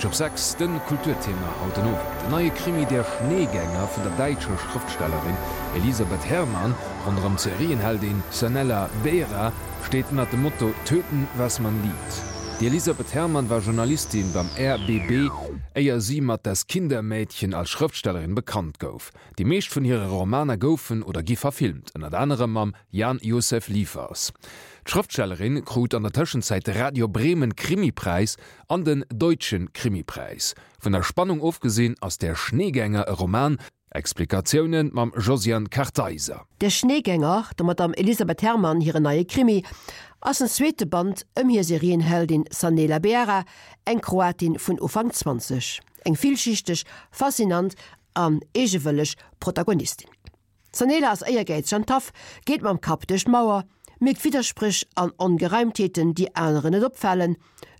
Mënsch op 6, De Kulturthema haut den Owend, den neie Krimi Der Schneegänger vun der däitscher Schrëftstellerin Elisabeth Herrmann ronderëm d'Serienheldin Sanela Beera steet ënnert dem Motto Töten, was man liebt. D'Elisabeth Herrmann war Journalistin beim RBB, éier si mat Das Kindermädchen als Schrëftstellerin bekannt gouf. Déi meescht vun hire Romaner goufen oder gi verfilmt, ënnert anerem mam Jan Josef Liefers. D'Schrëftstellerin krut an der Tëschenzäit de Radio Bremen Krimipräis an den Deutschen Krimipreis. Vun der Spannung ofgesinn ass Der Schneegänger e Roman. Explikatioune mam Josiane Kartheiser. Der Schneegänger, der Madame Elisabeth Herrmann hiren neie Krimi, ass den zweete Band ëm hir Serienheldin Sanela Beara, eng Kroatin vun Ufank 20. Eng villschichteg, faszinant an eegewëlleg Protagonistin. D'Sanela ass éiergäizeg an taff, geet mam Kapp duerch d'Mauer, mierkt Widderspréch an Ongereimtheeten, déi aneren net opfalen,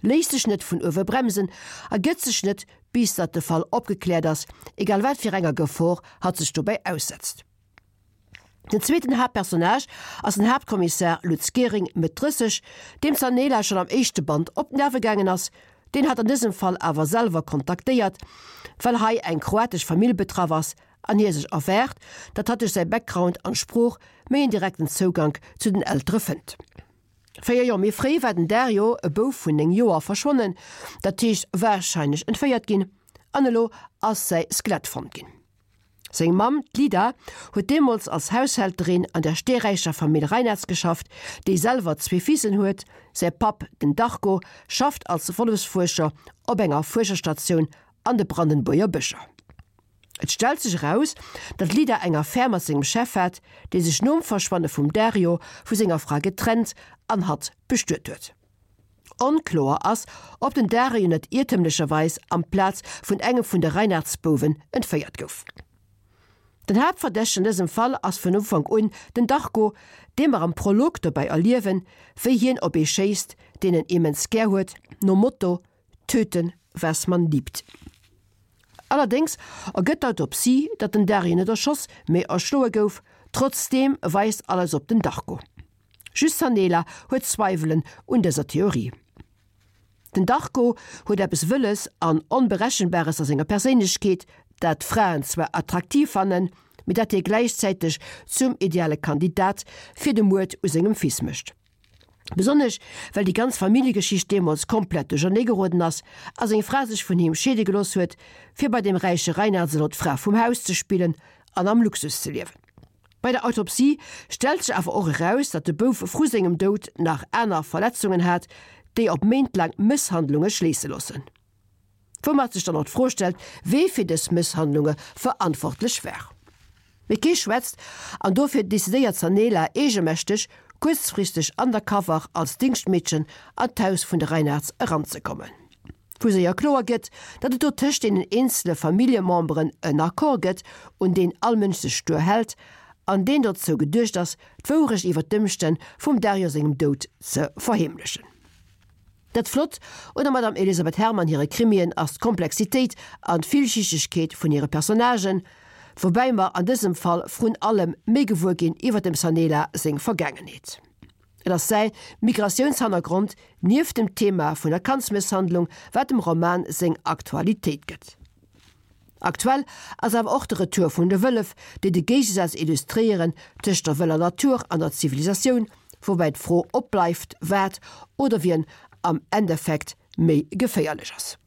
léisst sech net vun uewe bremsen a gëtt sech net, bis datt de Fall opgekläert ass, egal wat fir enger Gefor hatt sech dobäi aussetzt. Den zweeten Haaptpersonnage ass den Haaptkommissar Lutz Gehring, Mëtt 30, deem d'Sanela schonn am éischte Band op d'Nerve gaangen ass, deen hatt an dësem Fall awer selwer kontaktéiert, well hei eng kroatesch Famill betraff ass an hie sech erwaart, datt hatt duerch säi Background an Sprooch méi en direkten Zougank zu den Eltere fënnt. 4 Joer méi fréi war den Dario, e Bouf vun 9 Joer, verschwonnen, dat heescht warscheinlech entféiert ginn, an elo ass säi Skelett fonnt ginn. Seng Mamm, d'Lida, huet deemools als Haushälterin an der steeräicher Famill Reinartz geschafft, déi selwer zwee Fissen huet. Säi Papp, den Darko, schafft als Wollefsfuerscher op enger Fuerscherstatioun an de Brandenbuerger Bëscher. Et stellt sech eraus, datt d'Lida eng Affär mat sengem Chef hat, dee sech nom Verschwanne vum Dario vu senger Fra getrennt an hatt bestuet huet. Onkloer ass, ob den Dario net iertemlecherweis amplaz vun engem vun de Reinartz-Bouwen entféiert gouf. Den Haaptverdächtegen an dësem Fall ass vun Ufank un den Darko, dee mer am Prolog dobäi erliewen, wéi hien op ee schéisst, deen en immens gär huet, nom Motto, Töten, was man liebt. Allerdéngs ergëtt d'Autopsie, datt den Dario net erschoss, mee erschloe gouf. Trotzdeem weist alles op den Darko. Just d'Sanela huet Zweiwelen un dëser Theorie. Den Darko huet eppes Wëlles an Onberechenbares a senger Perséinlechkeet, dat d'Fraen zwar attraktiv fannen, mee dat hie gläichzäiteg zum ideale Kandidat fir de Muerd u sengem Fils mécht. Besonnesch well déi ganz Familljegeschicht deemools komplett duerchernee geroden ass a seng Fra sech vun him scheede gelooss huet, fir bei dem räiche Reinards elo d'Fra vum Haus ze spillen an am Luxus ze liewen. Bei der Autopsie stellt sech awer och eraus, datt de Bouf vru sengem Doud nach aner Verletzungen hat, déi op méintlaang Mësshandlunge schléisse loossen. Woumat sech dann och d'Fro stellt, wee fir dës Mësshandlunge verantwortlech war. Mee kee schwätzt, an dofir decidéiert d'Sanela eegemächteg, kuerzfristeg undercover als Dingschtmeedchen an d'Haus vun de Reinards eranzekommen. Wou séier kloer gëtt, datt et do tëscht deenen eenzele Familljememberen en Accord gëtt, un deen all Mënsch sech stuer hält, an deen dozou geduecht ass, d'Wourecht iwwer d'Ëmstänn vum Dario sengem Doud ze verheemlechen. Dat Flott un der Madame Elisabeth Herrmann hire Krimien ass d'Komplexitéit an d'Villschichtegkeet vun hire Personnagen, woubäi mer an dësem Fall vrun allem méi gewuer ginn iwwer dem Sanela seng Vergaangenheet. Et ass säi Migratiounshannergrond, nieft dem Thema vun der Kandsmësshandlung, wat dem Roman seng Aktualitéit gëtt. Aktuell ass awer och de Retour vun de Wëllef, déi de Géigesaz illustréieren tëscht der wëller Natur an der Zivilisatioun, woubäi d'Fro opbleift, wat oder wien am Endeffekt méi geféierlech ass.